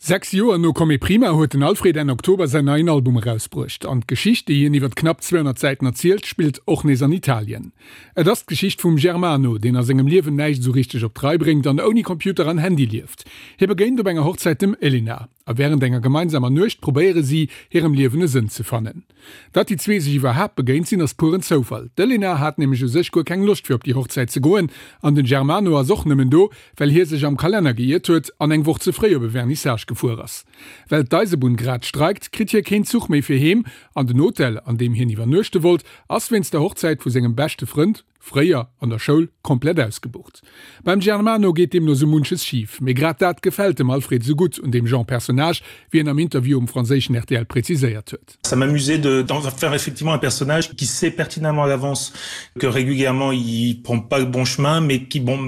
6 Joer no Come Prima huet den Alfred Enn Oktober säin neien Album erausbruecht. An d'Geschicht, déi hien iwwert knapp 200 Säiten erzielt, spillt och nees an Italien. Et ass d'Geschicht vum Germano, deen a sengem Liewen näischt esou richteg op d'Rei bréngt an ouni Computer an Handy lieft. Hie begéint op enger Hochzäit dem Elena. A wärend enger gemeinsamer Nuecht probéiere si, hirem Liewen e Sënn ze fannen. Datt déi zwee sech iwwerhaapt begéint sinn, ass pueren Zoufall. D'Elena hat nämlech u sech guer keng Loscht fir op déi Hochzäit ze goen an den Germano ass och nëmmen do, well hie sech am Kalenner geiert huet an eng Woch ze fréi op e Vernissage gefuer ass. Well d'Eisebunn grad streikt, kritt hie keen Zuch méi fir heem an den Hotel, an deem hien iwwernuechte wollt, ass wéinst der Hochzäit vu sengem beschte Frënd, fréier an der Schoul, komplett ausgebucht. Beim Germano geet deemno sou munches schif, mee grad dat gefält dem Alfred sou gutt un deem Genre Personnage, wéi en am Interview um franséischen RTL präziséiert huet. Ça m'amusait de d'en faire effectivement un personnage qui sait pertinemment à l'avance que régulièrement il prend pas le bon chemin mais qui bon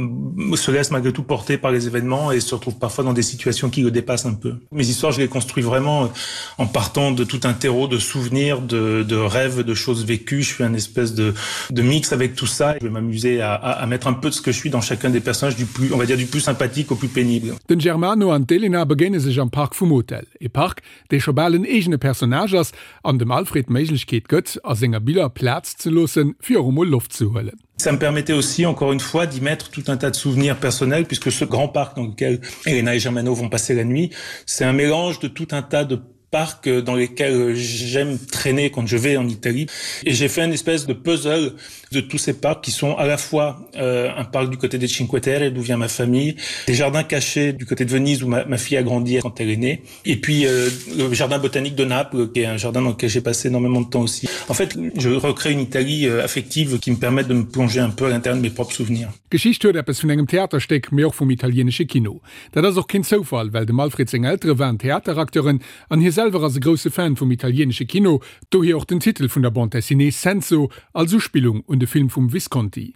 se laisse malgré tout porter par les événements et se retrouve parfois dans des situations qui le dépassent un peu. Mes histoires je les construis vraiment en partant de tout un terreau de souvenirs, de, de rêves, de choses vécues. Je fais un espèce de, de mix avec tout ça. Je vais m'amuser à, à, à mettre un peu de ce que je suis dans chacun des personnages du plus on va dire du plus sympathique au plus pénible. Den Germano an d'Elena begéine sech am Park vum Hotel. E Park, dee scho bal en eegene Personnage ass an dem Alfred d'Méiglechkeet gëtt, a senger Biller Plaz ze loossen, fir och emol Loft ze huelen. Ça me permettait aussi encore une fois d'y mettre tout un tas de souvenirs personnels puisque ce grand parc dans lequel Elena et Germano vont passer la nuit, c'est un mélange de tout un tas de parcs dans lesquels j'aime traîner quand je vais en Italie et j'ai fait une espèce de puzzle de tous ces parcs qui sont à la fois euh, un parc du côté des Cinque Terre d'où vient ma famille, des jardins cachés du côté de Venise où ma, ma fille a grandi quand elle est née et puis euh, le jardin botanique de Naples qui est un jardin dans lequel j'ai passé énormément de temps aussi. En fait, je recrée une Italie euh, affective qui me permet de me plonger un peu à l'intérieur de mes propres souvenirs. D'Geschicht huet eppes vun engem Theaterstéck, mee och vum italienesche Kino. Dat ass och keen Zoufall, well dem Alfred seng Eltere waren Theateracteuren an hie selwer ass e grousse Fan vum italienesche Kino, dohier och den Titel vun der Bande dessinée Senso als Uspillung un de Film vum Visconti.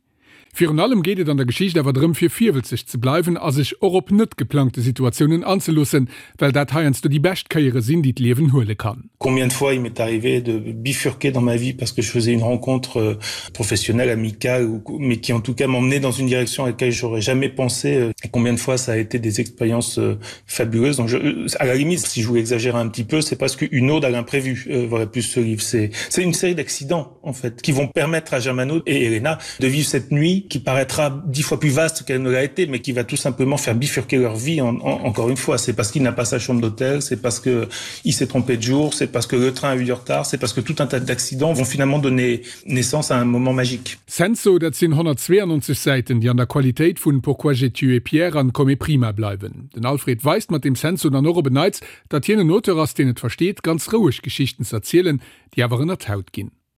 Virun allem geet et an der Geschicht awer drëm fir virwëlzeg ze bleiwen a sech och op net geplangte Situatiounen anzeloossen, well dat heiansdo déi bescht Kéiere sinn, déi d'Liewen huele kann. Combien de fois il m'est arrivé de bifurquer dans ma vie parce que je faisais une rencontre professionnelle, amicale ou mais qui en tout cas m'emmenait dans une direction à laquelle j'aurais jamais pensé et combien de fois ça a été des expériences fabuleuses. Donc je, à la limite, si je voulais exagérer un petit peu, c'est presque une ode à l'imprévu euh, voilà plus ce livre. C'est une série d'accidents en fait qui vont permettre à Germano et Elena de vivre cette nuit qui paraîtra dix fois plus vaste qu'elle ne l'a été, mais qui va tout simplement faire bifurquer leur vie en, en, encore une fois. C'est parce qu'il n'a pas sa chambre d'hôtel, c'est parce que il s'est trompé de jour, c'est parce que le train a eu du retard, c'est parce que tout un tas d'accidents vont finalement donner naissance à un moment magique. Senso, dat sinn 192 Säiten, déi an der Qualitéit vun Pourquoi j'ai tué Pierre an Come prima bleiwen. Den Alfred weist mat dem Senso dann och op en Neits, datt hien en Auteur ass, deen et versteet, ganz roueg Geschichten z'erzielen, déi awer ënner d'Haut ginn.